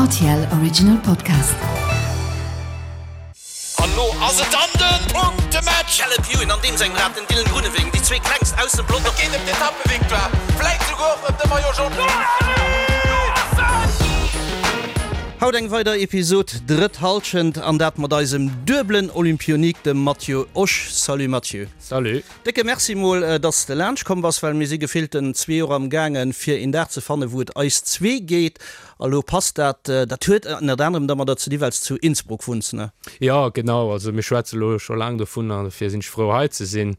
RTL Original Podcast. An lo ass et dann den Punktematch! Caleb Ewan an deem sengem Rad, den Dylan Groenewegen, déi zwee klengst aus dem Pelotong. Et geet ëm d'Etappevictoire, vläit souguer och ëm de Maillot Jaune. Haut eng weider Episod Drëtt Hallschent an dat mat eisem duebelen Olympionik, dem Matthieu Osch. Salut Matthieu. Salut. Décke Merci mol, dass de laanscht komm bass, well mir si gefillten zwee Joer am gaangen, fir een Dag ze fannen, wou et eis zwee geet. A lo passt dat. Dat huet ënnert anerem dermadder ze di, well s zu Innsbruck wunns, ne? Jo, genau. Also mir schwätze lo scho laang dovun an dofir sinn ech frou hei ze sinn.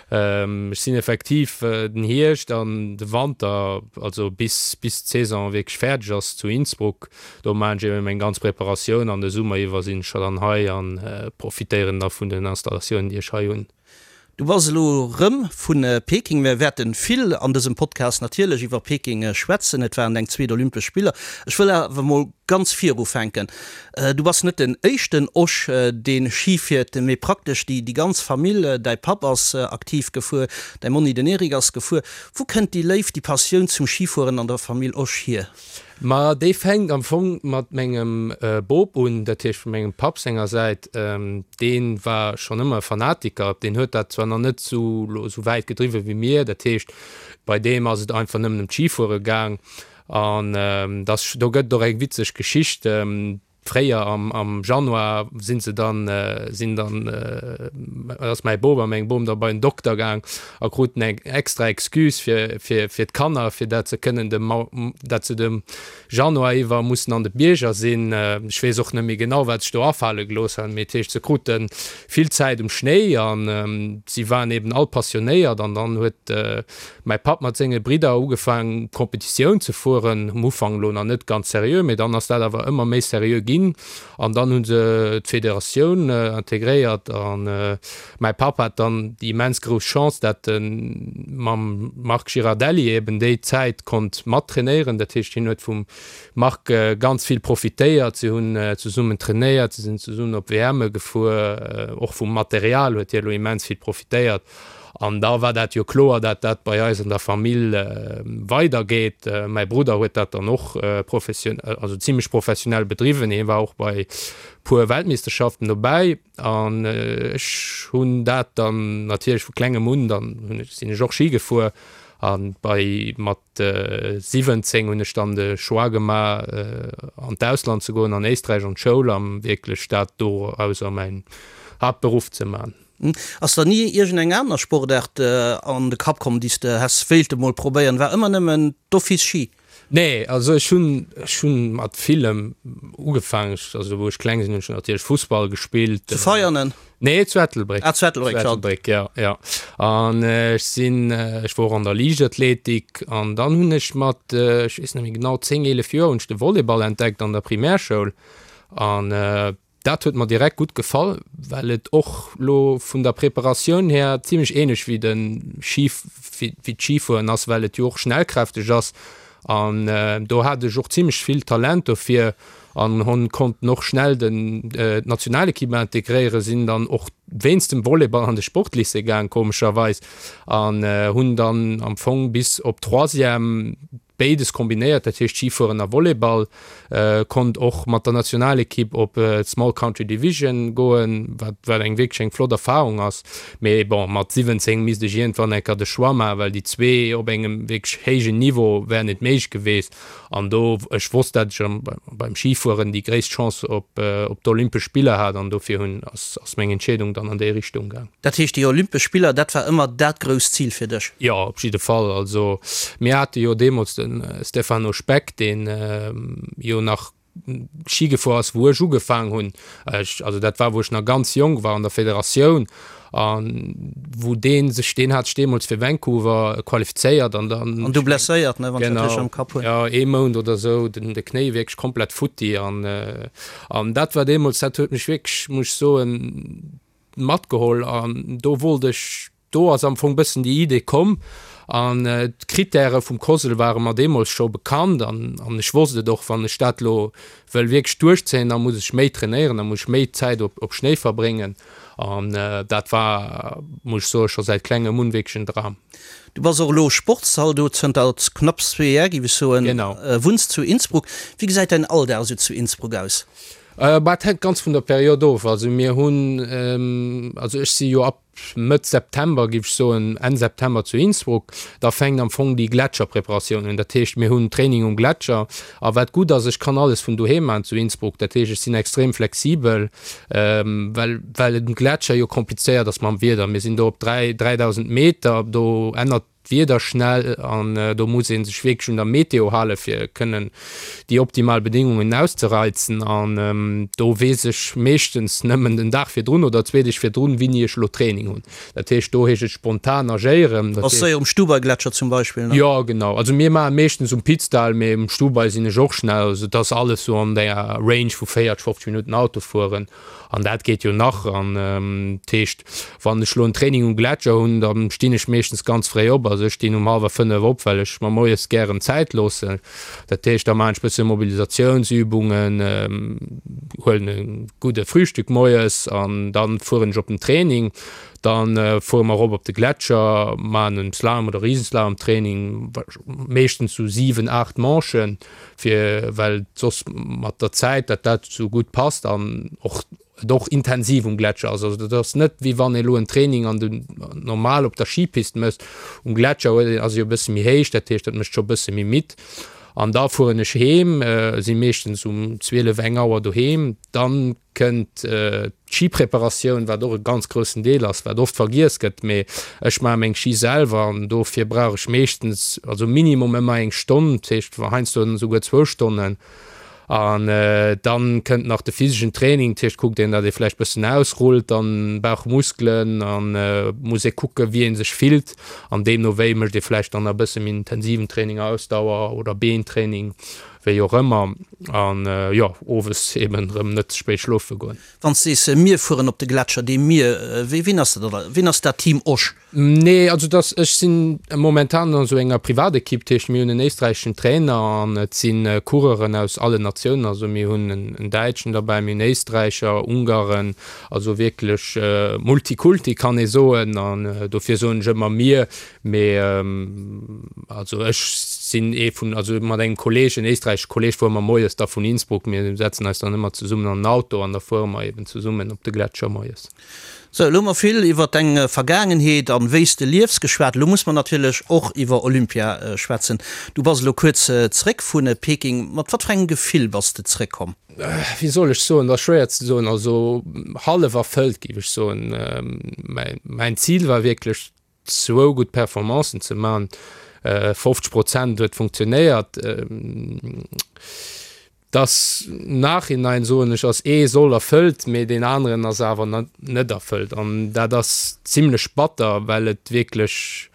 Ech sinn effektiv den Hierscht an de Wanter, also bis bis d'Saison wierklech fäerdeg ass, zu Innsbruck. Do maachen ech eben meng ganz Preparatioun an de Summer iwwer sinn ech scho dann hei an profitéieren da vun den Installatiounen, déi ech hei hunn. Du bass elo rëm vu Peking. Mir wäerte vill an dësem Podcast natierlech iwwer Peking schwätzen. Et waren deng zweet Olympesch Spiller. Ech wëll awer mol ganz vir ufänken. Du bass net den éischten Osch, dee Schi fiert, mee praktesch déi ganz Famill. Däi Papp ass aktiv gefuer, däi Monni den Eric ass gefuer. Wou kënnt déi Léift, déi Passioun zum Schifueren an der Famill Osch hier? Ma déi fänkt am Fong mat mengem Bop un, dat heescht vu mengem Papp senger Säit. Dee war schonn ëmmer e Fanatiker. Deen huet dat zwar nach net esou lo esou wäit gedriwwe wéi mir, dat heescht bei deem ass et einfach nëmmen ëm d'Schifuere gaang. An dass do gëtt et och eng witzeg Geschicht. Fréier am am Januar sinn se dann sinn dann ass mäi Bop a meng Bom da bei den Dokter gaang a kruten eng extra Excuse fir fir fir d'Kanner fir dat se kënnen de dat se de Januar iwwer mussen an de Bierger sinn. Ech weess och net méi genau wat sech do afale gelooss han, mee et heescht se krute vill Zäit um Schnéi an si waren eben all passionéiert an dann huet Mäi Papp mat senge Bridder ugefaang Competitioun ze fueren, um Ufank elo nach net ganz seriö, mee dann ass dat awer ëmmer méi seriö ginn an dann hu se d'Federatioun integréiert an mäi Papp hat dann déi immens grouss Chance, dat e mam Marc Girardelli eben déi Zäit konnt mat trainéieren. Dat heescht, hien huet vum Marc ganz vill profitéiert, si hunn zesummen trainéiert, si sinn zesummen op WMe gefuer, och vum Material huet hie elo immens vill profitéiert. An da war dat jo kloer, dat dat bei eis an der Famill weidergeet. Mäi Brudder huet dat dann och profession-, also zimlech professionell bedriwwen. Hie war och bei puer Weltmeeschterschaften dobäi. An ech hunn dat dann natierlech vu klengem un, dann hunn ech, sinn ech och Schi gefuer. A bei mat 17 hunn ech dann de Choix gemaach, an d'Ausland ze goen, an Éisträich an d'Schoul, a wierklech dat dorauser mäin Haaptberuff ze man. Ass der ni iergend eng aner Sportaart an de Kapp komm, déi s de häss wéilte mol probéieren? War ëmmer nëmmen d'Office Schi? Nee, also ech hunn, ech hunn mat villem ugefaangen. Ech, also wou ech kleng sinn, hunn ech natierlech Fussball gespillt. Zu Veianen? Nee, zu Ettelbréck. Ah, zu Ettelbréck, Zu Ettelbréck, ja, ja. An ech sinn, ech wor och an der Liichtathletik an dann hunn ech mat, ech weess net méi genau, 10, 11 Joer hunn ech de Volleyball entdeckt an der Primärschoul an Dat huet mer direkt gutt gefall, well et och lo vun der Preparatioun här zimlech ähnlech wéi de Ski, wéi d'Schifueren ass, well et jo och schnellkräfteg ass an do hat ech och zimlech vill Talent dofir an hon konnten och schnell den d'Nationalequipe integréieren, sinn dann och wéinst dem Volleyball an de Sportlycée gaang komescherweis an hunn dann am Fong bis op Troisième Béides kombinéiert, dat heescht Schifueren a Volleyball. Konnt och mat der Nationalekipp op d'Small Country Division goen, wat wat eng wierklech eng flott Erfarung ass. Mee bon, mat 17 misst ech iergendwann eng Kéier de Choix maachen, well déi zwee op engem wierklech héijen Niveau wär net méiglech geweest. An do, ech wosst, dat ech beim Schifueren déi gréisst Chance op op d'Olympesch Spiller hat an dofir hunn ass ass meng Entscheedung dann an déi Richtung gaang. Dat heescht, déi Olympesch Spiller, dat war ëmmer dat grousst Zil fir dech? Jo, op jidde Fall. Also mir hate jo deemools de Stefano Speck, deen jo nach Schi gefuer ass, wou ech ugefaang hunn. Ech, also dat war, wou ech nach ganz jonk war an der Federatioun an wou dee sech, deen hat sech deemools fir Vancouver qualifizéiert an dann. An du blesséiert, ne, wann ech dat richteg am Kapp hunn. Genau, jo, ee Mount oder esou, den de Knéi wierklech komplett futti an an dat war deemools, dat huet mech wierklech, muss ech soen, matgeholl an do wollt ech. Do ass am Fong bëssen déi Idee komm an d'Krittäre vum COSL ware mer deemools scho bekannt an an ech wosst et och, wann ech dat elo wëll wierklech duerchzéien, da muss ech méi trainéieren, da muss ech méi Zäit op op Schnéi verbréngen an dat war, muss ech soen, scho säit klengem un wierklech en Dram. Du bass och elo Sportszaldot zënter knapps zwee Jar, géif ech soen. Genau. Wunns zu Innsbruck. Wéi gesäit däin Alldag esou zu Innsbruck aus? Bah, et hänkt ganz vun der Period of. Also mir hunn, also ech si jo ab Mëtt September, géif ech soen, Enn September zu Innsbruck. Da fänkt am Fong déi Gletscherpreparatioun un. Dat heescht, mir hunn Training um Gletscher. A wat gutt ass, ech kann alles vun doheem maachen zu Innsbruck. Dat heescht, ech sinn extrem flexibel, well well et um Gletscher jo komplizéiert ass mam Wieder. Mir sinn do op 3, 3.000 Meter, do ännert d'Wieder schnell an do muss ee sech wierklech un der Meteo hale fir kënnen déi optimal Bedingungen auszereizen an do weess ech meeschtens nëmmen den Dag virdrun oder zwee Deeg virdrun wéini ech elo Training hunn. Dat heescht do heescht et spontan agéieren. Ass séier um Stubai-Gletscher zum Beispill, ne? Jo genau, also mir maache meeschtens um Pitztal, mee um Stubai sinn ech och schnell. Also et ass alles sou an der Range vu 40, 50 Minutten Auto fueren. An dat geet jo nach. An dat heescht, wann ech elo en Training um Gletscher hunn, da stinn ech meeschtens ganz fréi op. Also ech stinn um hallwer 5 op, well ech mer moies gären Zäit loossen. Dat heescht, da maachen ech bësse Mobilisatiounsübungen, huelen e gudde Frühstück moies an da fueren ech op den Training. Da fuere mer erop op de Gletscher, maachen en Slalom oder Riesenslalom-Training, meeschtens sou 7, 8 Manchen. fir well soss mat der Zäit dat dat sou gutt passt an och et och intensiv um Gletscher ass. Also dat ass net wéi wann ee lo en Training an den normal op der Skipist mécht. Um Gletscher huet een ass e jo e bësse méi héich, dat heescht dat mécht scho e bësse méi midd. An da fueren ech heem, si meeschtens um 12, eng Auer doheem. Dann kënnt d'Schipreparatioun, wat och e ganz groussen Deel ass, wat oft vergiess gëtt, mee ech maache meng Schi selwer an dofir brauch ech meeschtens, also minimum ëmmer eng Stonn, dat heescht heiansdo esouguer zwou Stonnen. An dann kënnt nach de physeschen Training, dat heescht kuckt een, datt ee vläicht bëssen ausrullt, dann Bauchmuskelen an muss ee kucke wéi ee sech fillt an deemno wéi mécht ee vläicht dann nach e bësse méi intensiven Training, Ausdauer oder Beentraining. Wéi och ëmmer. An jo, owes eben rëm net ze spéit schlofe goen. Wann s de sees, mir fueren op de Gletscher, dee mir, wéi, wien ass dat da? Wien ass dat Team Osch? Nee, also dass, ech sinn momentan an esou enger Privatekipp, dat heescht mir hunn en éisträicheschen Trainer an et si Coureuren aus allen Natiounen, also mir hunn en Däitschen derbäi, mir hunn Éisträicher, Ungaren, also wierklech Multikulti kann ee soen an dofir soen ech ëmmer mir, Mee also ech sinn ee vun, also mat engem Kolleeg, en éisträichesche Kolleeg, fuere mer moies da vun Innsbruck, mir setzen eis dann ëmmer zesummen an den Auto an da fuere mer eben zesummen op de Gletscher moies. Sou, elo hu mer vill iwwer deng Vergaangenheet an wéi s de liefs geschwat. Elo muss mer natierlech och iwwer Olympia schwätzen. Du bass elo kuerz zeréck vu Peking. Mat wat fir engem Gefill bass de zeréckkomm? Wéi soll ech soen, dat ass schwéier ze soen. Also hallef erfëllt, géif ech soen. Mäin Zil war wierklech zwou gutt Performancen ze man. 50 Prozent huet funktionéiert. Dass Nachhinein soen ech ass ee Soll erfëllt, mee deen aneren ass awer net erfëllt. An dat ass zimlech batter, well et wierklech,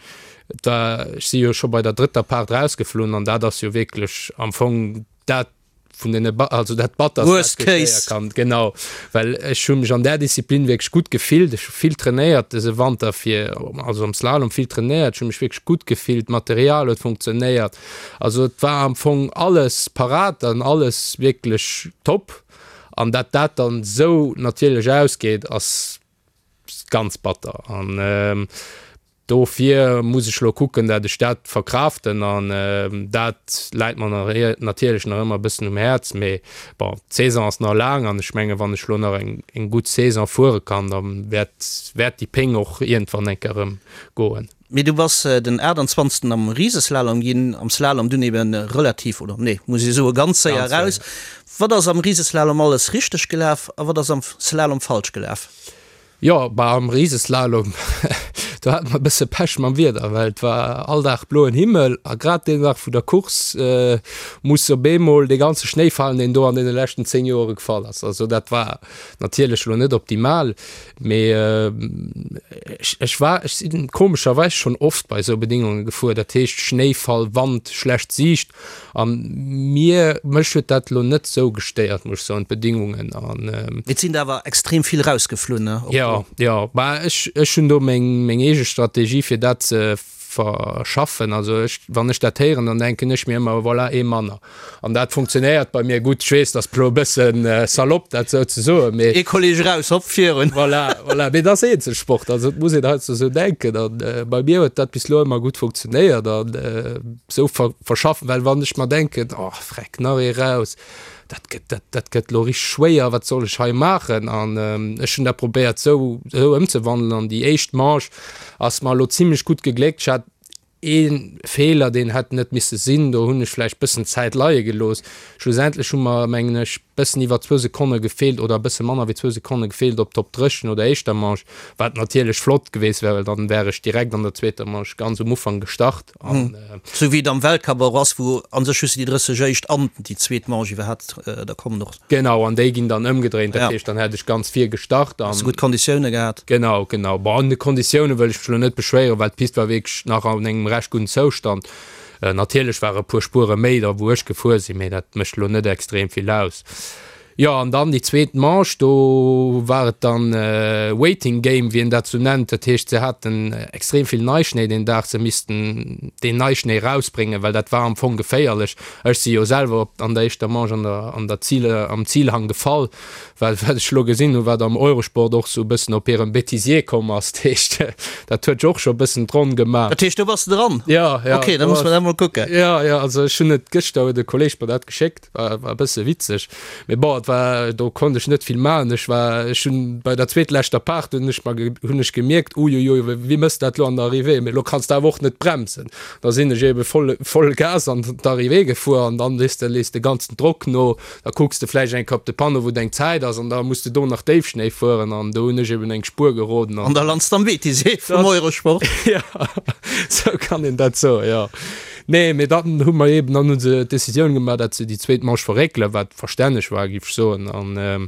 et war, ech si jo scho bei der drëtter Part rausgeflunn an dat ass jo wierklech am Fong dat, vun den also dat batterst Worst case kann genau well ech hu mech an der Disziplin wierklech gutt gefillt ech hu vill trainéiert dëse Wanter fir also am Slalom vill trainéiert ech hu mech wierklech gutt gefillt d'Material huet funktionéiert also et war am Fong alles parat an alles wierklech top an dat dat dann esou natierlech ausgeet ass ganz batter an Dofir muss ech lo kucken, dat ech dat verkraften an dat läit mer natierlech nach ëmmer e bëssen um Häerz. Mee bon, d'Saison ass nach laang an ech mengen, wann ech lo nach eng gutt Saison fuere kann, da wäert wäert déi Péng och iergendwann eng Kéier erëm goen. Mee du bass den 28. am Riseslalom ginn, am Slalom dunn eben relativ, oder nee, muss ee soe ganz séier eraus. Wat ass am Riseslalom alles richteg gelaf a wat ass am Slalom falsch gelaf? Jo, bah am Riseslalom, do hate mer e bësse Pech mam Wieder, well et war all Dag bloen Himmel a grad deen Dag vun der Course muss op eemol dee ganze Schnéi falen, deen do an deene leschten 10 Joere gefall ass. Also dat war natierlech elo net optimal, mee ech, ech war, ech sinn komescherweis schonn oft bei esou Bedingunge gefuer, dat heescht Schnéifall, Wand, schlecht Siicht. An mir, mech huet dat elo net sou gestéiert, muss ech soen, d'Bedingungen an. Et sinn der awer extrem vill rausgeflunn, ne? Jo, jo, bah ech, ech hunn do meng, meng. eege Strategie fir dat ze verschaffen. Also ech, wann ech dat héieren, dann denken ech mir ëmmer, voilà, ee manner. An dat funktionéiert bei mir gutt. Ech weess, dat ass elo e bëssen salopp, dat esou ze soen, mee. Ee Kolleg eraus, hopp, virun. Voilà, voilà. Mee dat ass Eenzelsport, also et muss een heiansdo esou denken. An bei mir huet dat bis elo ëmmer gutt funktionéiert an esou verschaffen, well wann ech mer denken, oh freck, nach ee raus, dat gëtt, dat, dat gëtt elo richteg schwéier, wat soll ech hei maachen? An ech hunn dat probéiert esou, esou ëmzewandelen an déi éischt Manche ass mer elo zimlech gutt gegléckt. Ech hat ee Feeler, deen hätt net misse sinn, do hunn ech vläicht bëssen Zäit leie gelooss. Schlussendlech hu mer, mengen ech, bëssen iwwer zwou Sekonne gefeelt oder e bësse manner wéi zwou Sekonne gefeelt op d'Top 30 no der éischter Manche, wat natierlech flott geweest wär, well dann wär ech direkt an der zweeter Manche ganz um Ufank gestart. An Sou wéi et am Weltcup och ass, wou a sech just déi 30 éischt an déi zweet Manche iwwerhaapt da kommen och. Genau, an déi ginn dann ëmgedréint, dat heescht, dann hätt ech ganz vir gestart an. Hues de gutt Konditioune gehat? Genau, genau. Bon, un de Konditioune wëll ech mech elo net beschwéieren, well d'Pist war wierklech nach an engem recht gudden Zoustand. Natierlech ware e puer Spuere méi da wou ech gefuer sinn, mee dat mécht elo net extrem vill aus. Jo, an dann déi zweet Manche, do war et dann Waiting Game, wéi een dat sou nennt. Dat heescht, se haten extrem vill Neischnéi deen Dag, se missten deen Neischnéi rausbréngen, well dat war am Fong geféierlech. Ech si jo selwer op an der éischter Manche an der an der Zil am Zilhang gefall, well wat ech elo gesinn hunn, wat am Eurosport och sou e bëssen op hirem Bêtisier komm ass. Dat heescht, dat huet jo och scho e bëssen d'Ronn gemaach. Dat heescht, do bass de dran? Jo, jo. Ok, da muss mer dat mol kucken. Jo, jo, also ech hunn et gëschter huet e Kolleeg mer dat geschéckt. War, war e bësse witzeg. Mee bon, et war, do konnt ech net vill maachen. Ech war, ech hunn bei der zweetleschter Part hunn ech mer, hunn ech gemierkt, uiuiui, wéi mëss dat lo an der Arrivée? Mee lo kanns de awer och net bremsen. Da sinn ech ebe voll, voll Gas an d'Arrivée gefuer an dann, weess de, lees de ganzen Drock no. Da kucks de vläicht eng Kéier op de Panneau, wou deng Zäit ass an da muss de do nach Déifschnéi fueren an do hunn ech eben eng Spuer geroden an. An da lands de am Bêtisier vum Eurosport. Jo, sou kann een dat soen, jo. Nee, mee dann hu mer eben, dann hu se d'Decisioun gemaach, datt se déi zweet Manche verréckelen, wat verstänneg war, géif ech soen. An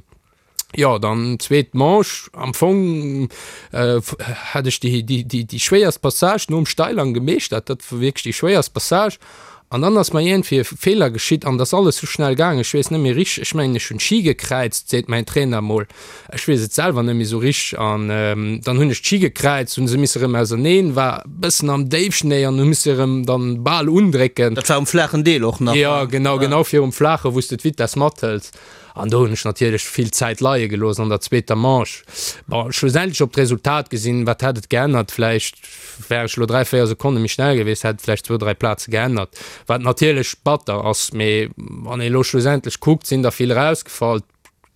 jo, dann zweet Manche, am Fong hat ech déi, déi, déi, déi schwéierst Passage nom Steilhang gemeeschtert, dat war wierklech déi schwéierst Passage. An dann ass mer iergendwéi e Feeler geschitt an et ass alles sou schnell gaangen, ech weess net méi richteg, ech mengen ech hunn d'Ski gekräizt, seet mäin Trainer emol. Ech weess et selwer net méi sou richteg an dann hunn ech d'Ski gekräizt, hunn se misse rëm auserneen, war bëssen am Déifschnéi an hu misse rëm dann bal undrécken. Dat war um flaachen Deel och nach? Jo, genau, genau virum Flaache wou s de d'Vitess mathëls an do hunn ech natierlech vill Zäit leie gelooss an der zweeter Manche. Bon, schlussendlech op d'Resultat gesinn, wat hätt et geännert? Vläicht wär ech elo 3, 4 Sekonne méi schnell gewiescht, hätt et vläicht zwou, dräi Plaze geännert, wat natierlech batter ass. Mee wann ee elo schlussendlech kuckt, sinn der vill erausgefall.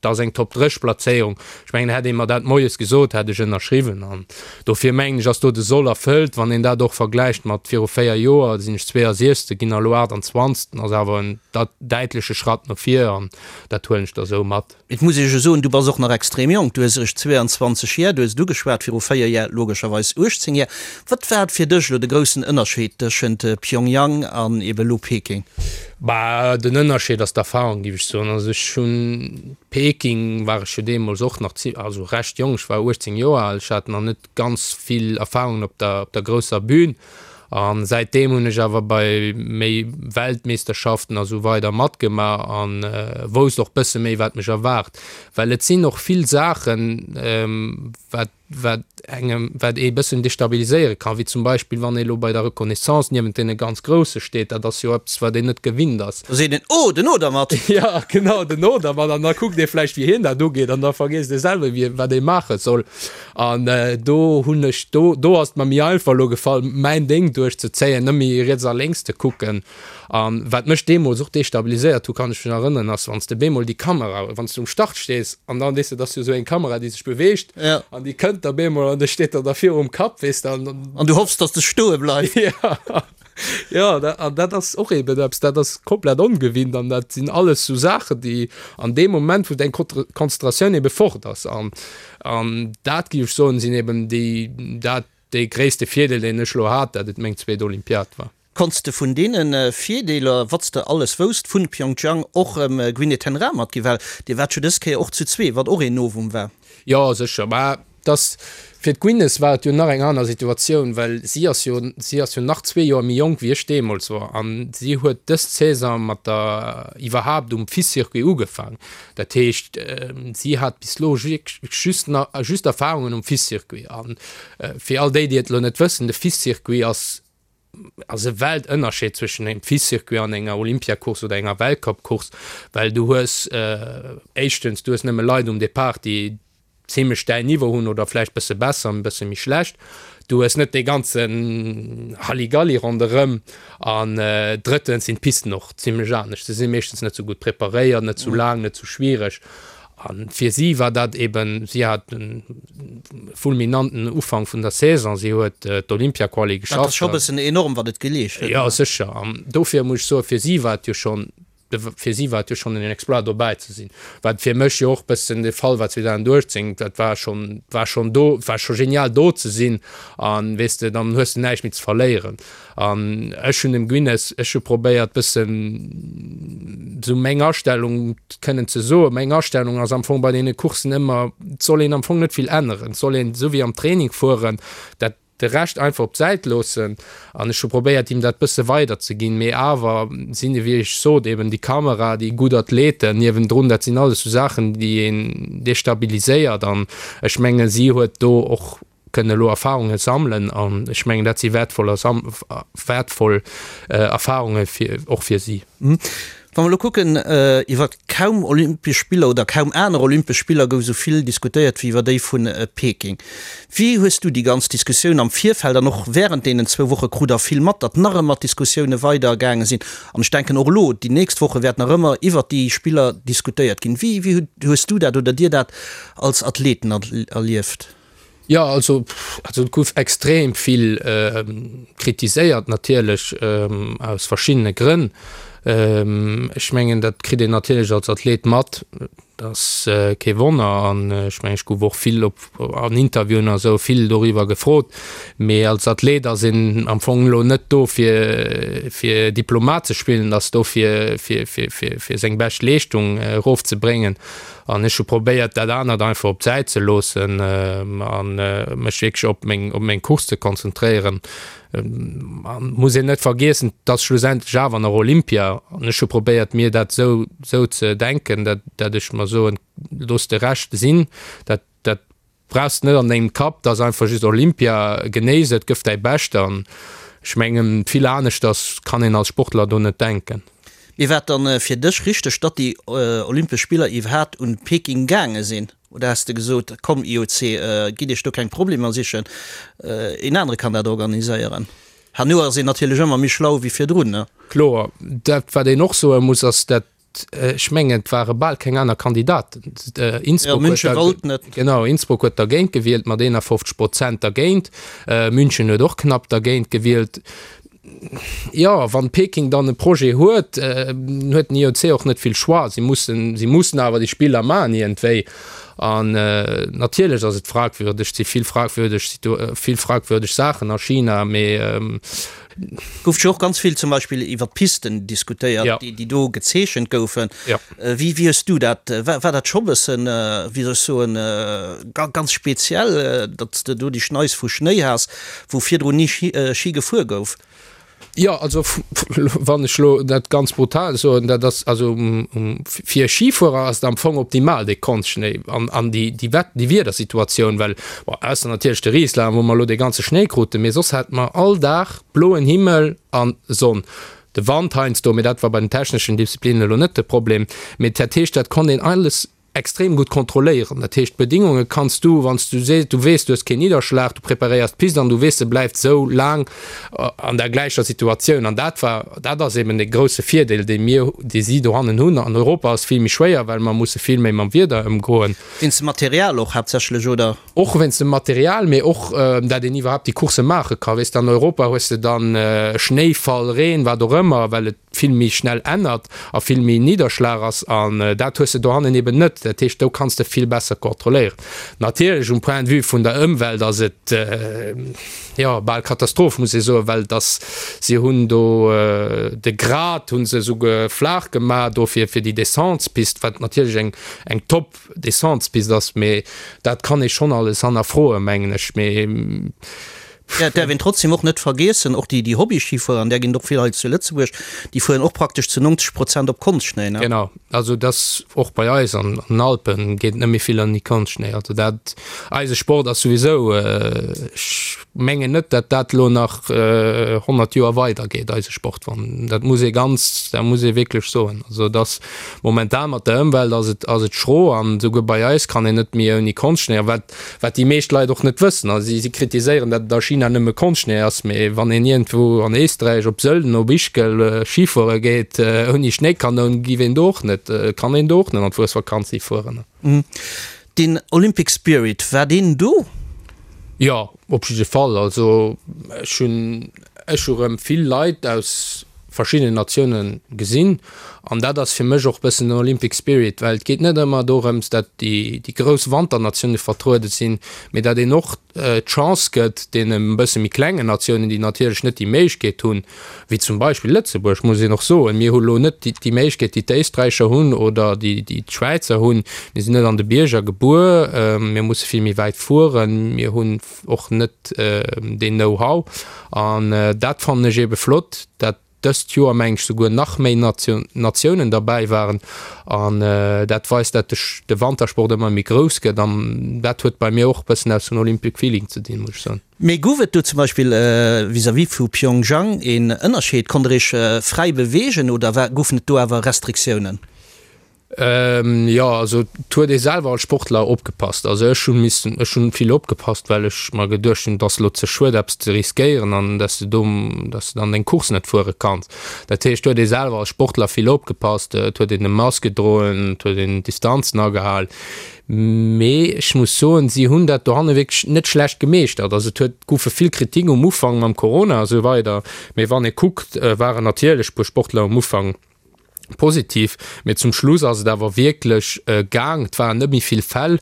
Dat ass eng Top 3 Plazéierung. Ech mengen, hätt ee mer dat moies gesot, hätt ech ënnerschriwwen. An dofir mengen ech, ass do de Soll erfëllt. Wann een dat och vergläicht mat viru 4 Joer, da sinn ech 62. ginn a lo 28. Ass awer en däitleche Schratt no vir an dat huelen ech da sou mat. Et muss ee jo soen, du bass och nach extrem jonk. Du hues eréischt 22 Jär, du hues et ugeschwat, viru 4 Jär logescherweis 18 Jär. Wat war fir dech elo de groussen Ënnerscheed tëschent Pyongyang an ebe lo Peking? Bah, den Ënnerscheed ass d'Erfahrung, géif ech soen. Also ech hunn, Peking war ech jo deemools och nach zi-, also recht jonk, ech war 18 Joer al, ech hat nach net ganz vill Erfahrungen op der, op der grousser Bühn. A säitdeem hunn ech awer bei méi Weltmeesterschaften a sou weider matgemaach a wousst och bësse méi, wat mech erwaart. Well et sinn och vill Saachen, wat wat engem, wat ee bëssen destabiliséiere kann, wéi zum Beispill wann ee lo bei der Reconnaissance niewent deene ganz Grousse steet, dat ass jo eppes, wat een net gewinnt ass. Da seet een, Oh, den Odermatt! Jo, genau, den Odermatt. An da kuckt ee vläicht, wéi hien dat ugeet, an da vergiesst ee selwer, wéi, wat ee maache soll. An do hunn ech, do, do ass et mer méi einfach elo gefall, mäin Déng duerchzezéien, net méi riets a lénks ze kucken. An wat mech deemools och destabiliséiert hu, kann ech mech erënneren, ass wann s de bemol déi Kamera, wann s de um Start stees an dann, weess de, et ass jo esou eng Kamera, déi sech beweegt an déi kënnt da bemol an da steet der da virum Kapp, weess de, an. An du hoffs, dass de stoe bleifs. Jo, jo, an dat ass och eben eppes, dat ass komplett ongewinnt an dat sinn alles sou Saachen, déi an deem Moment, wou deng Konzentratioun ebe fort ass an, an dat, géif ech soen, sinn eben déi, dat, dee gréisste Virdeel, deen ech elo hat, dat et meng zweet Olympiad war. Konns de vun deene Virdeeler, wat s de alles wousst, vun Pyeongchang och Gwyneth ten Raa matginn? Well dir waart jo dës Kéier och zu zwee, wat och een Novum war. Jo, sécher. Mä et ass. Fir d'Gwyneth war et jo nach eng aner Situatioun, well si ass jo, si ass jo nach zwee Joer méi jonk wéi ech deemools war an si huet dës Saison mat der iwwerhaapt um FIS-Circuit ugefaang. Dat heescht, si hat bis elo just just Erfarungen um FIS-Circuit. A fir all déi, déi et elo net wëssen, de FIS-Circuit ass ass e Weltënnerscheed zwëschen engem FIS-Circuit an enger Olympiacourse oder enger Weltcup-Course, well du hues éischtens, du hues nëmme Leit um Depart, déi zimlech däin Niveau hunn oder vläicht bësse besser, e bësse méi schlecht. Du hues net dee ganzen Halligalli ronderëm an drëttens sinn d'Pisten och zimlech anescht. Se si meeschtens net sou gutt preparéiert, net sou laang, net sou schwiereg. A fir si war dat eben, si hat e fulminanten Ufank vun der Saison, si huet d'Olympiaquali geschafft. Dat ass scho bëssen enorm, wat et geleescht huet. Jo, sécher. An dofir muss ech soen, fir si war et jo schonn, fir si war et jo schonn en Exploit dobäi ze sinn. Wat fir mech jo och bëssen de Fall war 2018, dat war schonn, war schonn do, war scho genial do ze sinn an, weess de, dann hues de näischt méi ze verléieren. An ech hunn dem Guinness, ech hu probéiert bëssen esou meng Astellung kënnen ze soen. Meng Astellung ass am Fong bei deene Courssen ëmmer, et soll een am Fong net vill änneren, et soll een esou wéi am Training fueren, dat de Rescht einfach op d'Säit loossen. An ech hu probéiert him dat bësse weider ze ginn, mee awer sinn, wéi ech sot, eben déi Kamera, déi gutt Athleten niewendrun, dat sinn alles esou Saachen, déi een destabiliséiert. An ech menge si huet do och kënnen elo Erfahrunge sammelen an ech mengen, dat si wäertvoll wäertvoll Erfahrunge fir och fir si. Wa mer elo kucken, iwwer kaum Olympesch Spiller oder kaum aner Olympesch Spiller gouf esou vill diskutéiert wéi iwwer déi vu Peking. Wéi hues du déi ganz Diskussioun am Virfeld an och wärend deenen zwou Woche, krut der vill mat, datt nach ëmmer d'Diskussioune weider gaange sinn an ech denken och elo déi nächst Woche wäert nach ëmmer iwwert déi Spiller diskutéiert ginn. Wéi wéi hues du dat oder dir dat als Athleten erlieft? Jo, also also et gouf extrem vill kritiséiert natierlech aus verschiddene Grënn. Ech mengen, dat kritt een natierlech als Athlet mat, dat ass kee Wonner an ech mengen, ech gouf och vill op an Interviewen a sou vill doriwwer gefrot. Mee als Athlet ass een am Fong elo net do fir fir Diplomat ze spillen, ass do fir fir fir fir seng bescht Leeschtung erofzebréngen. An ech hu probéiert, dat anert einfach op d'Säit ze loossen a mech wierklech op meng, op meng Course ze konzentréieren. An muss een net vergiessen, et ass schlussendlech awer nach Olympia. An ech hu probéiert, mir dat esou, esou ze denken, dat, dat ech mer soen, looss de Rescht sinn, dat, dat Brauchs net an dengem Kapp, dat ass einfach just Olympia, genéiss et, gëff däi Bescht an ech mengen vill aneschters kann een als Sportler do net denken. Mee war et dann fir dech richteg, datt déi Olympesch Spiller iwwerhaat un Peking gaange sinn? Oder has de gesot, komm IOC, gitt iech do keng Problemer sichen, een anere kann dat organiséieren? Herno ass een natierlech ëmmer méi schlau wéi virdrun, ne? Kloer, dat wat een och soe muss ass, dat Ech mengen, et ware bal keng aner Kandidaten. Innsbruck huet München wollt net. Genau, Innsbruck huet dergéint gewielt mat 51 Prozent dergéint. München huet och knapp dergéint gewielt. Jo, wann Peking dann e Projet huet, huet den IOC och net vill Choix. Si mussen, si mussen awer déi Spiller maachen iergendwéi. An natierlech ass et fragwürdeg, et si vill fragwürdeg, vill fragwürdeg Saachen a China, mee Gouf jo och ganz vill zum Beispill iwwer d'Pisten diskutéiert, ja. déi, déi do gezeechent goufen. Ja. Äh, wéi, wéi hues du dat, war, war dat scho bëssen, wéi soll ech soen, ganz speziell, datt s de do déi Schneis vu Schnéi has, wou virdrun ni Schi, Schi gefuer gouf? Jo, also wann ech elo dat ganz brutal soen, dat ass also fir e Schifuerer ass et am Fong optimal dee Konstschnéi an, an déi, déi Wett, déi Wiedersituatioun, well Bon, ausser natierlech de Rieslang, wou mer elo dee ganze Schnéi kruten, mee soss hate mer all Dag bloen Himmel a Sonn. De Wand heiansdo, mee dat war bei den techneschen Disziplinnen elo net de Problem. Mee dat heescht, dat konnt een alles extrem gutt kontrolléieren. Dat heescht, d'Bedingunge kanns du, wann s du sees, du weess, du hues keen Nidderschlag, du preparéiers d'Pist an du weess, se bleift esou laang an der gläicher Situatioun. An dat war, dat ass eben dee grousse Virdeel, dee mir, dee si dohannen hunn. An Europa ass vill méi schwéier, well mer musse vill méi mam Wieder ëmgoen. Wéinst dem Material och haaptsächlech, oder? Och wéinst dem Material, mee och dat een iwwerhaapt déi Coursse maache ka. Weess de, an Europa hues de dann Schnéifall, Reen, wat och ëmmer, well et vill méi schnell ännert a vill méi Nidderschlag ass. An dat hues de dohannen eben net. Dat heescht, do kanns de vill besser kontrolléieren. Natierlech um Point de vue vun der Ëmwelt ass et, jo, bal Katastroph, muss ee soen, well et ass, si hunn do de Grat hu se esouguer flaach gemaach do fir déi Descentespist, wat natierlech eng, eng top Descentespist ass, mee dat kann ee schonn alles hannerfroen, mengen ech. Mee. Ja, et däerf een trotzdem och net vergiessen, och déi, déi Hobby-Schifuerer, an där ginn et och vill hei zu Lëtzebuerg, déi fueren och praktesch zu 90 Prozent op Konstschnéi, ne? Genau, also et ass och bei eis an den Alpen geet net méi vill ouni Konstschnéi. Also dat, eise Sport ass souwisou, ech mengen net, datt dat elo nach 100 Joer weidergeet, eise Sport, wann, dat muss ee ganz, dat muss ee wierklech soen. Also et ass momentan mat der Ëmwelt ass et, ass et schro an souguer bei eis kann een net méi ouni Konstschnéi. A wat Wat déi meescht Leit och net wëssen, a si kritiséieren, datt et a China nëmme Konschtschnéi ass, mee wann een iergendwou an Éisträich, op Sölden, op Ischgl Schifuere geet ouni Schnéikanoun, giff een do och net, kann een do och net an d'Fuesvakanz hifueren. Den Olympic Spirit, war deen do? Jo, op jidde Fall. Also ech hunn ech hu rëm vill Leit aus verschiddenen Natioune gesinn an dat ass fir mech och bëssen den Olympic Spirit, well et geet net ëmmer dorëms, dat déi déi grouss Wanternatioune vertruede sinn, mee dat een och d'Chance gëtt deene bësse méi klengen Natiounen, déi natierlech net déi Méiglechkeet hunn, wéi zum Beispill Lëtzebuerg, muss een och soen, mir hu lo net déi déi Méiglechkeet, déi d'Éisträicher hunn oder déi déi d'Schwäizer hunn, mir sinn net an de Bierger gebuer, mir musse vill méi wäit fueren, mir hunn och net deen Know-how an dat fannen ech eebe flott, dat dëst Joer meng ech souguer nach méi Natiounen derbäi waren an dat weist, dat de Wantersport ëmmer méi grouss gëtt an dat huet bei mir och e bëssen aus dem Olympic Feeling ze dinn, muss ech soen. Mee gouf et do zum Beispill vis-à-vis vu Pyeongchang een Ënnerscheed? Konnt der Iech fräi beweegen oder goufen et do awer Restriktiounen? Jo, also et huet ee selwer als Sportler opgepasst. Also ech hu missen, ech hunn vill opgepasst, well ech mer geduecht hunn, et ass elo ze schued eppes ze riskéieren an dass de do, dass de dann deng Course net fuere kanns. Dat heescht, et huet ee selwer als Sportler vill opgepasst, et huet een e Mask gedroen, et huet een d'Distanzen agehal. Mee ech muss soen, si hunn dat dohanne wierklech net schlecht gemeeschtert. Also et huet, goufe vill Kritik um Ufank mam Corona a sou weider, mee wann ee kuckt, waren natierlech e puer Sportler um Ufank, Positiv, mee zum Schluss ass et awer wierklech gaang. Et waren net méi vill Fäll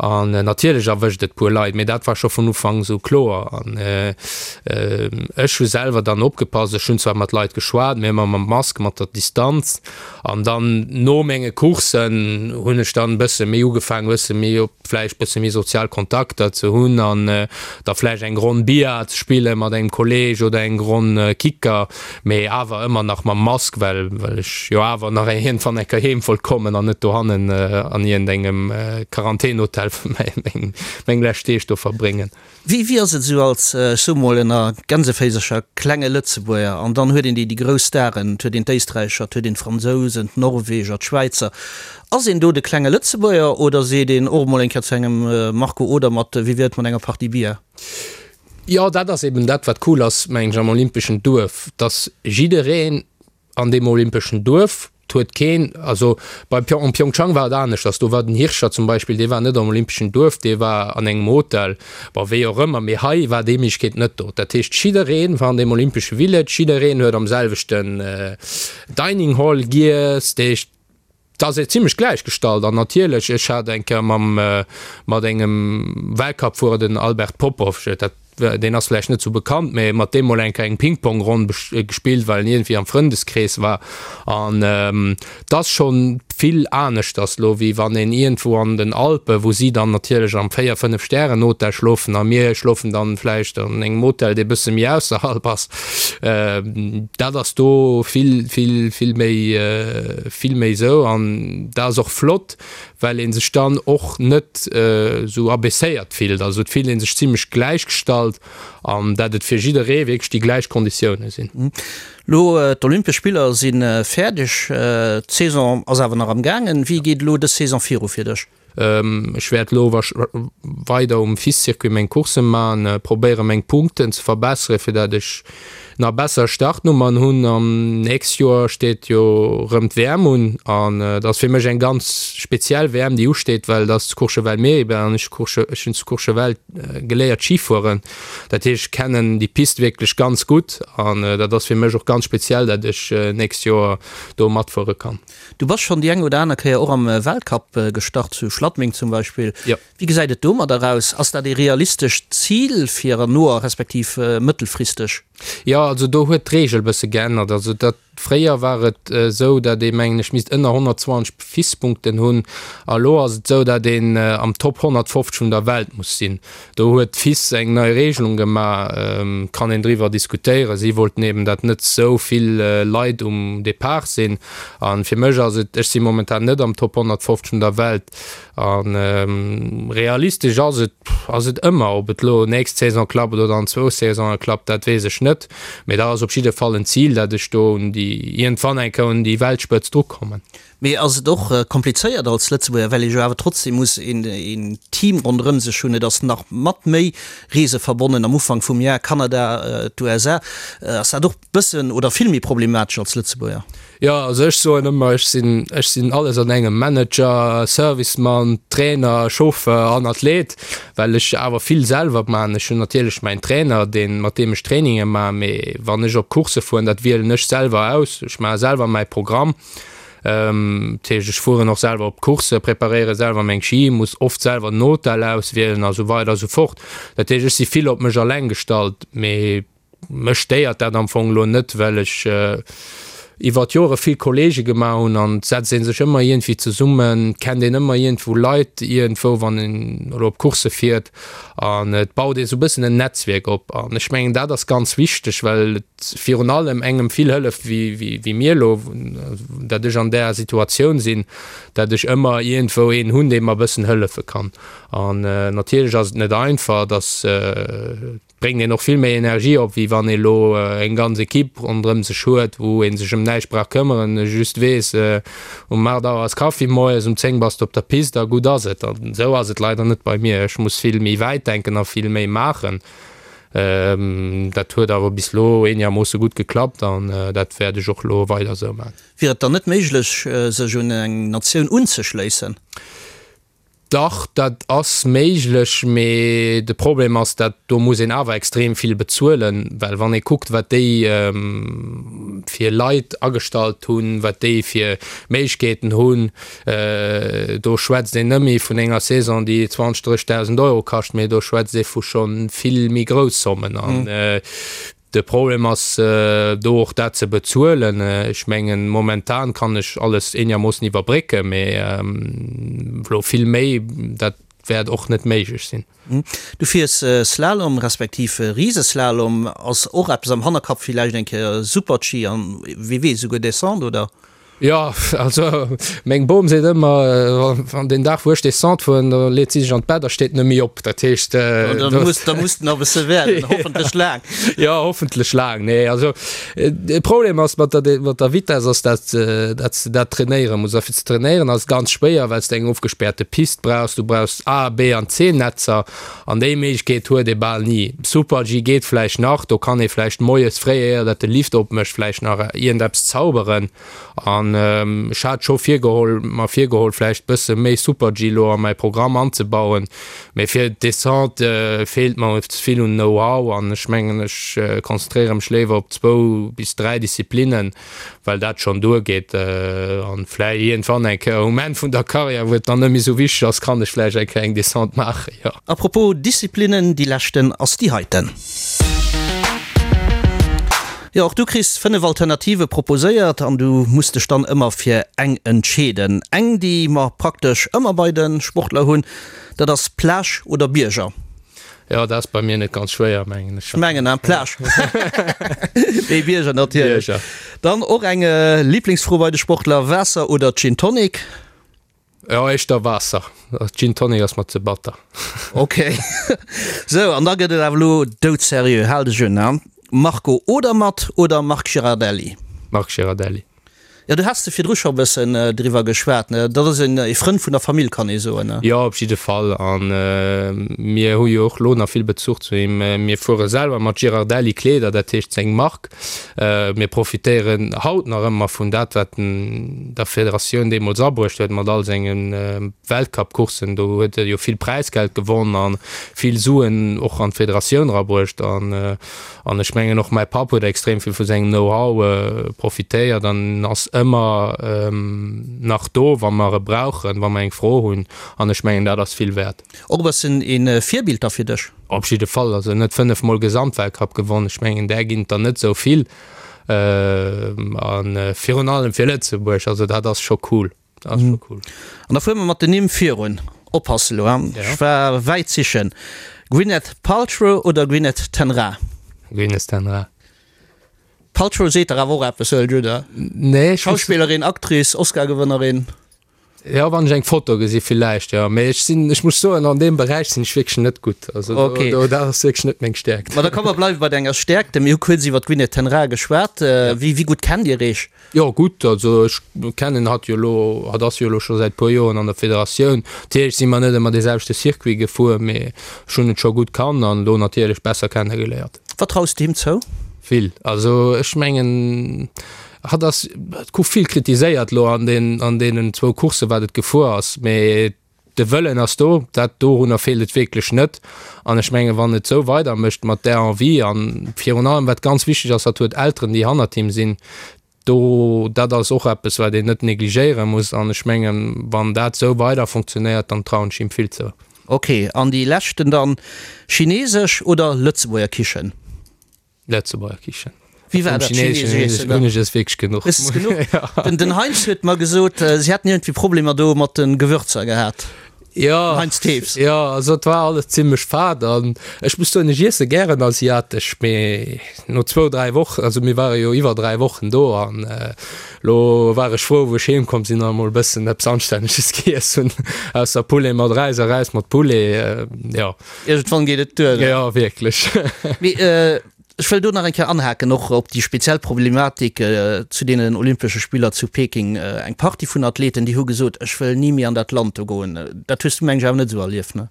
an natierlech erwëscht et puer Leit, mee dat war scho vun Ufank esou kloer. An ech hu selwer dann opgepasst, ech hunn zwar mat Leit geschwat, mee ëmmer mam Mask, mat der Distanz. An dann no menge Courssen hunn ech dann e bësse méi ugefaangen, e bësse méi op vläicht bësse méi sozial Kontakter ze hunn an da vläicht eng Ronn Billard ze spille mat engem Kolleeg oder eng Ronn Kicker, mee awer ëmmer nach mam Mask, well well ech jo awer nach iergendwann eng Kéier heem wollt kommen an net dohannen an iergendengem Quarantänhotel meng meng lescht Deeg do verbréngen. Wéi wéi ass et esou als, ech soe mol ënner Gänseféisercher, klenge Lëtzebuerger an dann huet een déi déi grouss Staren, et huet een d'Éisträicher, et huet een d'Fransousen, d'Norweger, d'Schwäizer. Ass een do de klenge Lëtzebuerger oder seet een och emol eng Kéier zu engem Marco Odermatt, wéi wier et mat enger Partie Bier? Jo, dat ass eben dat wat cool ass, mengen ech, am olympeschen Duerf, dass jiddereen an deem olympeschen Duerf, 't huet keen, also bei Pyeong, an Pyeongchang war et aneschters, do war den Hirscher zum Beispill, dee war net am olympeschen Duerf, dee war an engem Hotel, bon, wéi och ëmmer, mee hei war déi Méiglechkeet net do. Dat heescht, jiddereen war an deem olympesche Village, jiddereen huet am selwechten Dining Hall giess, dat heescht, 't ass ee zimlech gläichgestallt. An natierlech, ech hat eng Kéier mam, mat engem Weltcup-Fuerer, den Albert Popov, dat deen ass vläicht net sou bekannt, mä mat deem mol eng Kéier eng Ping-Pong-Ronn gespillt, well en iergendwéi am Frëndeskrees war. An et ass scho vill aneschters lo, wéi wann een iergendwou an den Alpen, wou si dann natierlech am Véier-, Fënnef-Stären-Hotel schlofen a mir schlofen dann vläicht an engem Hotel, dee bësse méi ausserhalb ass. Dat ass do vill, vill, vill méi, vill méi sou. An dat ass och flott, well ee sech dann och net esou abaisséiert fillt. Also et fillt ee sech zimlech gläichgestallt an dat et fir jidderee wierklech déi gläich Konditioune sinn. Lo d'Olympesch Spiller si fäerdeg, d'Saison ass awer nach am gaangen. Wéi geet elo dës Saison viru fir dech? Ech wäert elo weider um FIS-Circuit meng Coursse man, probéiere meng Punkten ze verbessere fir dat ech nach besser Startnummern hunn. An nächst Joer steet jo rëm d'WM un an dat ass fir mech eng ganz speziell WM déi usteet, well dat ass zu Courchevel Méribel an ech ech hunn zu Courchevel geléiert Ski fueren. Dat heescht ech kennen déi Pist wierklech ganz gutt an dat ass fir mech och ganz speziell, dat ech nächst Joer do matfuere kann. Du bass schonn déi eng oder aner Kéier och am Weltcup gestart, zu Schladming zum Beispill. Jo. Wéi gesäit et domadder aus? Ass dat ee realistescht Zil fir an noer respektiv mëttelfristeg? Jo, also do huet d'Reegel bësse geännert. Also dat, fréier war et esou, dat ee mengen ech misst ënner 120 FIS-Punkten hunn a lo ass et esou, dat een am Top 150 vun der Welt muss sinn. Do huet d'FIS eng nei Regelung gemaach, kann een driwwer diskutéieren. Si wollten eben, dat net esou vill Leit um Depart sinn. A fir mech ass et, ech si momentan net am Top 150 vun der Welt a realistesch ass et, ass et ëmmer. Ob et elo nächst Saison klappt oder an zwou Saisone klappt, dat weess ech net. Mee dat ass op jidde Fall en Zil, dat ech do un déi, iergendwann eng Kéier un déi Weltspëtzt drukommen. Mee ass et och komplizéiert als Lëtzebuerger, well ee jo awer trotzdem muss een Team ronderëm sech hunn. Et ass nach mat méi Reese verbonnen am Ufank vum Jar, Kanada, d'USA. Ass dat och bëssen oder vill méi problematesch als Lëtzebuerger? Jo, also ech soen ëmmer, ech sinn, ech sinn alles an engem, Manager, Servicemann, Trainer, Chauffeur an Athlet, well ech awer vill selwer man. Ech hunn natierlech mäin Trainer, deen, mat deem ech Traininge man, mee wann ech op Coursse fueren, dat wielen ech selwer aus. Ech maache selwer mäi Programm. Dat heescht, ech fueren och selwer op d'Coursse, preparéiere selwer meng Ski, muss oft selwer den Hotel auswielen a sou weider a sou fort. Dat heescht, ech si vill op mech alleng gestallt, mee mech stéiert dat am Fong elo net, well ech iwwer d'Jore vill Kolleege gemaach hunn an et setzt ee sech ëmmer iergendwéi zesummen, kennt een ëmmer iergendwou Leit iergendwou, wann een elo op Coursse fiert an et baut ee sou e bëssen en Netzwierk op an ech mengen, dat ass ganz wichteg, well et virun allem engem vill hëlleft wéi mir elo, dat ech an där Situatioun sinn, dat ech ëmmer iergendwou een hunn, dee mer e bëssen hëllefe kann. An natierlech ass et net einfach, dass bréngt een och vill méi Energie op, wéi wann ee elo eng ganz Equipe ronderëm sech huet, wou ee sech ëm näischt brauch këmmeren, just weess, um 8 Auer ass Kaffi moies, um 10 bass de op der Pist a gutt ass et. An esou ass et leider net bei mir. Ech muss vill méi wäit denken a vill méi maachen. Dat huet awer bis elo eenegermoosse gutt geklappt an dat wäert ech och elo weider esou maachen. Wier et dann net méiglech, sech un eng Natioun unzeschléissen? Dach, dat ass méiglech, mee de Problem ass, dat do muss een awer extrem vill bezuelen, well wann ee kuckt, wat déi fir Leit agestallt hunn, wat déi fir Méiglechkeeten hunn, Do schwätzt een net méi vun enger Saison, déi 20, 30.000 Euro kascht, mee do schwätzt ee vu scho vill méi grouss Zommen. An de Problem ass do och dat ze bezuelen. Ech mengen, momentan kann ech alles eenermoossen iwwerbrécken, mee elo vill méi, dat wäert och net méiglech sinn. Du fiers Slalom respektiv Riseslalom. Ass och eppes am Hannerkapp, villäicht eng Kéier Super-G an wie weess, esouguer Descente, oder? Jo, also meng Bom seet ëmmer, wann deen Dag wou ech Descente fueren, da leet si sech an d'Bett a steet net méi op. Dat heescht, Da muss, da muss nach e bësse waarden, hoffentlech laang. Jo, hoffentlech laang. Nee, also de Problem ass mat der, mat der Vitess ass, dat, dat s de dat trainéiere muss. A fir ze trainéieren ass et ganz schwéier, well s de eng ofgespäerte Pist brauchs. Du brauchs A, B an C-Netzer an déi Méiglechkeet huet ee bal ni. Super-G geet vläicht nach, do kann ee vläicht moies fréi, éier dat de Lift opmécht, vläicht nach iergendeppes zauberen. An ech hat scho virgeholl, mer virgeholl vläicht bësse méi Super-G elo a mäi Programm anzebauen, mee fir d'Descente feelt mer ze vill un Know-how an ech mengen ech konzentréiere mech léiwer op zwou bis 3 Disziplinnen, well dat schonn duergeet. An vläicht iergendwann eng Kéier um Enn vun der Karriär, wou et dann net méi esou wichteg ass, kann ech vläicht eng Kéier eng Descente maachen, jo. A propos Disziplinnen, déi leschten ass déi heiten. Jo, och du kriss 5 Alternative proposéiert an du muss dech dann ëmmer fir eng entscheeden. Eng, déi mer praktesch ëmmer bei de Sportler hunn, dat ass Plage oder Bierger. Jo, dat ass bei mir net ganz schwéier, mengen ech. Ech mengen, hein, Plage. Nee, Bierger natierlech. Bierger. Dann och eng Liblingsfro bei de Sportler, Waasser oder Gin Tonic? Jo, éischter Waasser. Gin Tonic ass mer ze batter. Ok. Sou, an da gëtt et awer elo doudseriö. Hal dech un, hein. Marco Odermatt oder Marc Girardelli? Marc Girardelli. Jo, du has de virdru scho e bëssen driwwer geschwat, ne? Dat ass een ee Frënd vun der Famill, kann ee soen, ne? Jo, op jidde Fall. A mir hu jo och elo nach vill Bezuch zu him. Mir fuere selwer mat Girardelli Kleeder, dat heescht seng Mark. Mir profitéieren haut nach ëmmer vun dat, wat en der Federatioun deemools abruecht huet mat all senge Weltcup-Courssen. Do huet e jo vill Präisgeld gewonn a vill Suen och an d'Federatioun erabruecht. An An ech mengen och mäi Papp huet extrem vill vu sengem Know-how profitéiert an ass ëmmer nach do, wa mer e brauchen, wa mer eng Fro hunn. An ech mengen, dat ass vill wäert. Och e bëssen e Virbild da fir dech? Op jidde Fall. Also en huet 5 Mol Gesamtweltcup gewonn. Ech mengen, där ginn et der net esou vill. A virun allem fir Lëtzebuerg. Also dat ass scho cool. Dat ass scho cool. An da fuere mer mat den Nimm virun. Oppasse lo, hein? Ja. Ech war wäit sichen. Gwyneth Paltrow oder Gwyneth ten Raa? Gwyneth ten Raa. Paltrow seet der awer och eppes, huelen ech un, oder? Nee, ech. Schauspillerin, Actrice, Oscar-Gewënnerin. Jo, wann ech eng Foto gesi villäicht, jo. Mee ech sinn, ech muss soen, an deem Beräich sinn ech wierklech net gutt. Also do, Okay. do, dat ass wierklech net meng Stäerkt. Ma da komm mer bleiwe bei denger Stäerkt. Mir hu kuerz iwwer d'Gwyneth ten Raa geschwat. Wéi, wéi gutt kennt Dir Iech? Jo gutt, also ech kennen hatt jo elo, hatt ass jo elo scho säit puer Joren an der Federatioun. Natierlech si mer net ëmmer dee selwechte Circuit gefuer, mee ech hunn et scho gutt kannt an elo natierlech besser kennegeléiert. Wat traus de him zou? Vill. Also ech mengen, hatt ass, et gouf vill kritiséiert elo an den, an deenen zwou Courssen, wat et gefuer ass, mee De Wëllen ass do, dat dorunner feelt et wierklech net. An ech mengen, wann et esou weidermécht mat där Envie an virun allem, wat ganz wichteg ass, hatt huet Elteren, déi hannert him sinn, do, dat ass och eppes, wat een net negligéiere muss. An ech mengen, wann dat esou weider funktionéiert, dann trauen ech him vill zou. Ok, an déi leschten dann, Chinesesch oder Lëtzebuerger Kichen? Lëtzebuerger Kichen. Wéi war dat chinesesch Iessen dann? Hunn ech es wierklech genuch. Hues es genuch? Ja. Den, den Heinz huet mer gesot, si hätten iergendwéi Problemer do mat de Gewürzer gehat. Ja. Den Heinz Thews. Ja, also et war alles zimmlech fad an ech muss soen, ech iesse gären asiatesch, mee no zwou, dräi Wochen, also mir ware jo iwwer dräi Wochen do an lo war ech frou, wou ech heem komm sinn an emol e bëssen eppes Anstänneges giess hunn, ausser Poulet mat Räis a Räis mat Poulet, jo. Iergendwann geet et duer. Jo, wierklech. Mee ech wëll do nach eng Kéier anhaken, och op déi speziell Problematik zu deenen Olympesche Spiller zu Peking. Eng Partie vun Athleten, déi hu gesot, ech wëll ni méi an dat Land do goen. Dat hues du, meng ech, awer net esou erlieft, ne?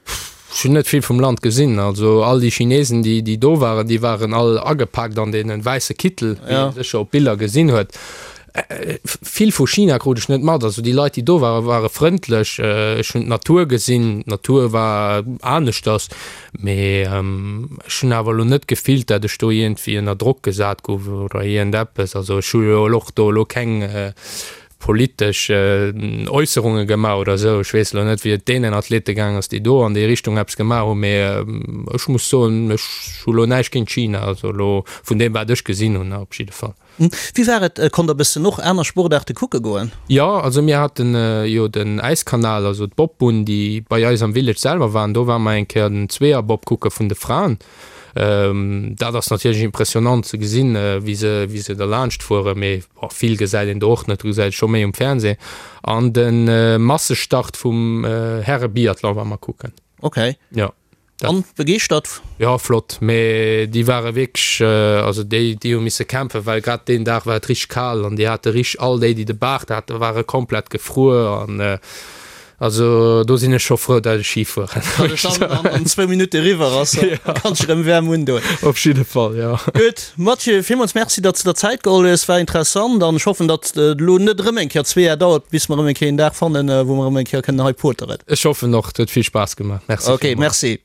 Ech hunn net vill vum Land gesinn. Also all déi Chinesen, déi, déi do waren, déi waren all agepaakt an deene wäisse Kittel, wéi ee sécher op Biller gesinn huet. Vill vu China krut ech net mat. Also déi Leit, déi do waren, ware frëndlech. Ech hunn d'Natur gesinn, d'Natur war aneschters, mee ech hunn awer elo net gefillt, dat ech do iergendwéi ënner Drock gesat gouf oder iergendeppes. Also ech hu jo och do elo keng politesch Äusserunge gemaach oder esou. Ech weess elo net, wéi et deenen Athlete gaang ass, déi do an déi Richtung eppes gemaach hunn, mee ech muss soen, ech hu lo näischt géint China, also elo vun deem, wat ech gesinn hunn op jidde Fall. Wéi war et, konnt der bëssen och aner Sportaarte kucke goen? Jo, also mir haten jo den Äiskanal, also d'Bobbunn, déi bei eis am Village selwer waren. Do ware mer eng Kéier den Zweeërbob kucke vun de Fraen. Dat ass natierlech impressionant ze gesinn, wéi se, wéi se derlaanscht fueren, mee vill gesäit een do och net, do gesäit ee scho méi um Fernseh. An de Massestart vum Häre-Biathlon ware mer kucken. Ok. Jo. An begeeschtert? Jo, flott, mee déi ware wierklech, also déi, déi hu misse kämpfen, well grad deen Dag war et richteg kal an déi hate richteg, all déi, déi de Baart haten, ware komplett gefruer an also do sinn ech scho frou, dat ech Ski fueren. Datt et dann an zwou Minutte eriwwer ass, da kanns de rëm waarm undoen. Op jidde Fall, jo. Gutt, Mathieu, villmools Merci, datt s de der Zäit geholl hues, war interessant an ech hoffen, datt et elo net erëm eng Kéier zwee Jar dauert, bis mer erëm eng Kéier een Dag fannen, wou mer erëm eng Kéier kënnen hei poteren. Ech hoffen och, et huet vill Spaass gemaach. Merci Ok, villmools. merci.